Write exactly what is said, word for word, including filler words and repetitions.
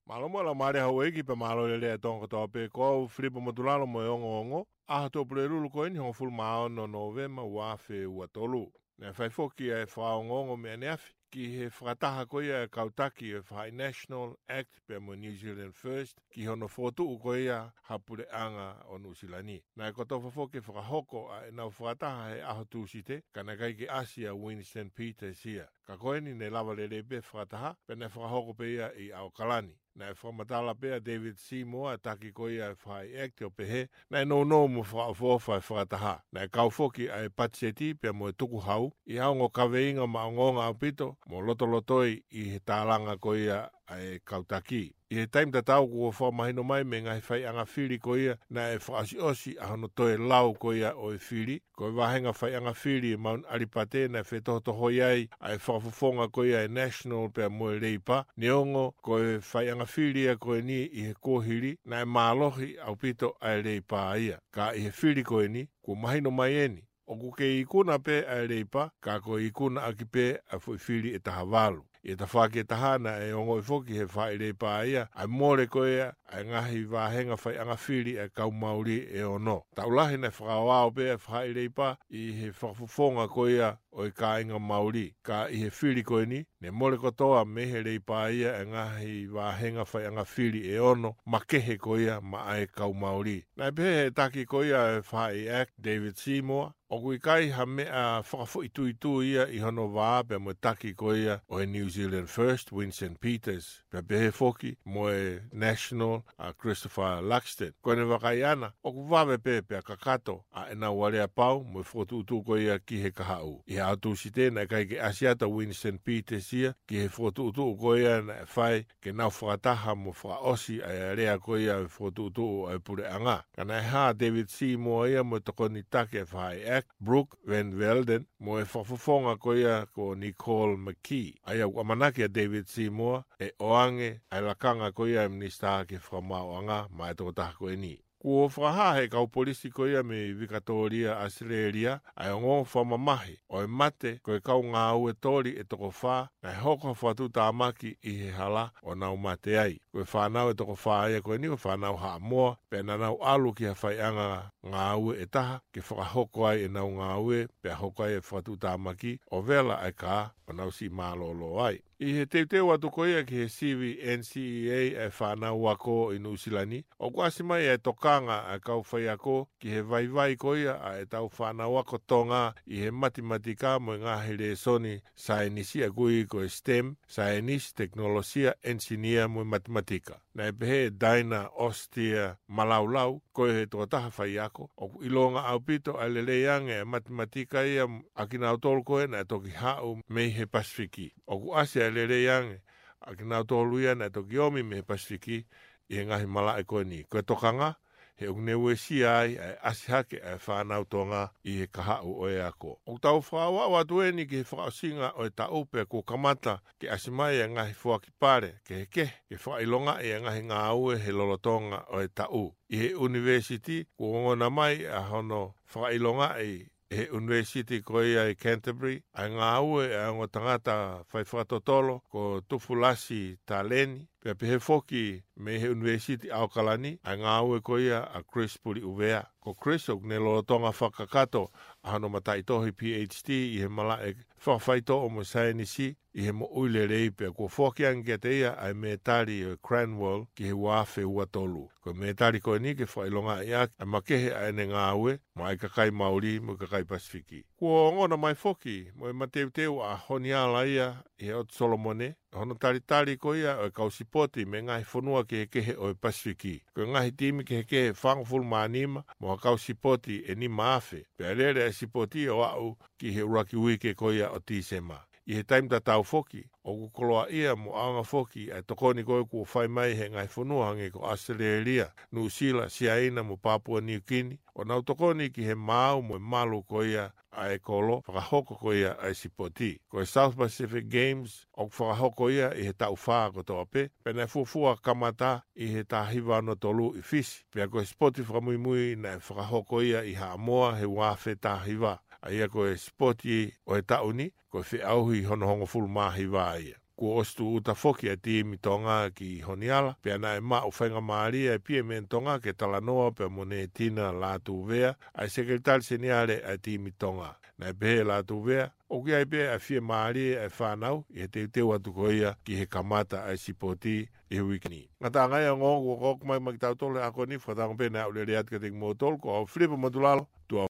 Mālō mo e laumālie ʻa houʻeiki pea mālō e lelei ʻa e Tonga kotoa pē. Ko au Filipo Motulalo mo e ongoongo. ʻAho Tuʻapulelulu ko eni hongofulu mā ono Nōvema ua afe ua tolu. Naʻe fai foki ʻa e fakaongoongo mei ʻaneafi ki he fakataha ko ia ʻa e kau taki ʻo e faʻahi National, ACT pea mo New Zealand First ki hono fokotuʻu ko ia ha puleʻanga ʻo Nuʻusila ni. Naʻe kotofa foki e fakahoko ʻa ʻenau fakataha he ʻaho Tūsite, ka naʻe ʻikai ke ʻasi ʻa Winston Peters ia. Ka ko eni ne lava lelei pē fakataha, pea naʻe fakahoko pē ia ʻi ʻAokalani. Naʻe fakamatala pē ʻa David Seymour, ʻa e taki ko ia ʻa e faʻahi ACT, ʻo pehē naʻe nounou mo fakaʻofoʻofa e fakataha. Naʻe kau foki ʻa e patiseti pea mo e tukuhau ʻi ha ongo kaveinga maʻongoʻonga ʻaupito mo lotolotoi ʻi he tālanga ko ia ʻa e kau taki. ʻI he taimi tatau kuo fakamahino mai mei he ngaahi faiʻanga fili ko ia naʻe fakaʻosiʻosi ʻa hono toe lau ko ia ʻo e fili, ko e vāhenga faiʻanga fili ʻi Mount ʻAlipate naʻe fetohotohoi ai ʻa e fakafofonga ko ia ʻa e National pea mo e Leipa, neongo ko e faiʻanga fili ia ko eni ʻi he kuohili naʻe mālohi ʻaupito ʻa e Leipa ia. Ka ʻi he fili ko eni, kuo mahino mai eni ʻoku kei ikuna pē ʻa e Leipa, ka ko e ikuna ʻaki pē ʻa e foʻi fili ʻe taha valu. ʻI he tafaʻaki ʻe taha naʻe ongoʻi foki ʻe he faʻahi Leipa ia ʻa e mole ko ia ʻa e ngaahi vāhenga faiʻanga fili ʻa e kau Mauli ʻe ono. Taʻu lahi naʻe fakaoao pē ʻa e faʻahi Leipa ʻi he fakafofonga ko ia ʻo e kāinga Mauli. Ka ʻi he fili ko eni, ne mole kotoa mei he Leipa ia ʻa e ngaahi vāhenga faiʻanga fili ʻe ono makehe ko ia maʻa e kau Mauli. Naʻe pehē ʻe he taki ko ia ʻa e faʻahi ACT, David Seymour, ʻoku ʻikai ha meʻa fakafoʻituitui ia ʻi hono vā pea mo e taki ko ia ʻo e New Zealand First, Winston Peters, pea pehē foki mo e National, ʻa Christopher Luxton. Ko ʻene vakai ʻana, ʻoku vave pē pea kakato ʻa ʻenau aleapau mo e fokotuʻutuʻu ko ia ki he kahaʻu. ʻI he ʻaho Tūsite naʻe ʻikai ke ʻasi atu ʻa Winston Peters ia ki he fokotuʻutuʻu ko ia naʻe fai ke nau fakataha mo fakaʻosi ʻa e alea ko ia ʻo e fokotuʻutuʻu ʻa e puleʻanga. Ka naʻe hā ʻa David Seymour ia mo e tokoni taki ʻa e faʻahi ACT, Brooke Van Velden, mo e fakafofonga ko ia ko Nicole McKee. ʻA ia ʻoku ʻamanaki ʻa David Seymour ʻe ʻoange ʻa e lakanga ko ia ʻa e Minisitā ki he Fakamaauʻanga maʻa e tokotaha ko eni. Kuo fakahā ʻe he kau polisi ko ia mei Vikatōlia, ʻAositelēlia, ʻa e ongoongo fakamamahi ʻo e mate ko e kau ngāue toli ʻe toko fā naʻe hoko ha fakatuʻutāmaki ʻi he hala ʻo nau mate ai. Ko e fānau ʻe toko fā ia ko eni ko e fānau Haʻamoa, pea naʻa nau ʻalu ki ha faiʻanga ngāue ʻe taha ke fakahoko ai ʻenau ngāue, pea hoko ai e fakatuʻutāmaki ʻo vela ʻa e kā ʻo nau siʻi mālōlō ai. ʻI he teuteu atu ko ia ki he sivi NCEA ʻa e fānau ako ʻi Nuʻusila ni, ʻoku ʻasi mai ʻa e tokanga ʻa e kau faiako ki he vaivai ko ia ʻa ʻetau fānau ako Tonga ʻi he matematika mo e ngaahi lēsoni saienisi, ʻa ia ʻoku ui ko e STEM, saienisi, tekinolosia, ʻenisinia mo e matematika. Naʻe pehē ʻe Diana Ostia Malaulau, ko e tokotaha faiako, ʻoku ʻilonga ʻaupito ʻa e lelei ange ʻa e matematika ia ʻa kinautolu ko ē naʻe toki haʻu mei he Pasifiki. ʻOku ʻasi ʻa e lelei ange ʻa kinautolu ia naʻe toki omi mei he Pasifiki ʻi he ngaahi malaʻe ko eni. Ko e tokanga, he ʻoku ne uesia ai ʻa e ʻasi hake ʻa e fānau Tonga ʻi he kahaʻu ʻo e ako. ʻOku tau fakaaʻu atu eni ki he fakaʻosinga ʻo e taʻu pea kuo kamata ke ʻasi mai ʻa e ngaahi foaki pale kehekehe ke fakaʻilongaʻi ʻa e ngaahi ngāue he lolotonga ʻo e taʻu. ʻI he ʻunivēsiti, kuo ongona mai ʻa hono fakaʻilongaʻi ʻe he ʻunivēsiti ko ia ʻi Canterbury ʻa e ngāue ʻa e ongo tangata fai fakatotolo ko Tufulasi Taleni, pea pehē foki mei he ʻunivēsiti ʻAokalani ʻa e ngāue ko ia ʻa Chris Puliʻuvea. Ko Chris ʻoku ne lolotonga fakakakato ʻa hono mataʻitohi PhD ʻi he malaʻe fakafaitoʻo mo e saienisi ʻi he moʻui lelei, pea kuo foaki ange kiate ia ʻa e mētali ʻo e Cranwell ki he ua afe ua tolu. Ko e mētali ko eni ke fakaʻilongaʻi ʻaki ʻa e makehe ʻa ʻene ngāue maʻa e kakai Mauli mo e kakai Pasifiki. Kuo ongona mai foki mo e mateuteu ʻa Honiala ia ʻi he ʻOtu Solomone, hono talitali ko ia ʻo e kau sipoti mei he ngaahi fonua kehekehe ʻo e Pasifiki. Ko e ngaahi timi kehekehe ʻe fāngofulu mā nima mo ha kau sipoti ʻe nima afe, pea lele ʻa e sipoti ʻo aʻu ki he ʻuluaki uike ko ia ʻo Tīsema. ʻI he taimi tatau foki, ʻoku koloaʻia mo ʻaonga foki ʻa e tokoni ko ē kuo fai mai ʻe he ngaahi fonua hangē ko ʻAositelēlia, Nuʻusila, Siaina mo Papua Niukini, ʻo nau tokoni ki he maau mo e malu ko ia ʻa e kolo fakahoko ko ia ʻa e sipoti. Ko e South Pacific Games ʻoku fakahoko ia ʻi he taʻu fā kotoa pē, pea naʻe fuofua kamata ʻi he taha hiva ono tolu ʻi Fisi. Pea ko e sipoti fakamuimui naʻe fakahoko ia ʻi Haʻamoa he ua afe taha hiva. ʻa ia ko e sipoti ʻo e taʻu ni, ko e feʻauhi hono hongofulu mā hiva ia. Kuo ʻosi tūʻuta foki ʻa e timi Tonga ki Honiala, pea naʻe maʻu faingamālie ʻa e P M N Tonga ke talanoa pea mo Netina Lātūvea, ʻa e sekelitali seniale ʻa e timi Tonga. Naʻe pehē ʻe Lātūvea, ʻoku ʻi ai pē ʻa e fiemālie ʻa e fānau ʻi he teuteu atu ko ia ki he kamata ʻa e sipoti ʻi he uike ni. Ngataʻanga ia e ongoongo kuo ʻoatu mai maʻa kitautolu he ʻaho ni, fakatauange pē naʻa ku lele atu kiate kimoutolu, ko au Filipa Motulalo, tuʻa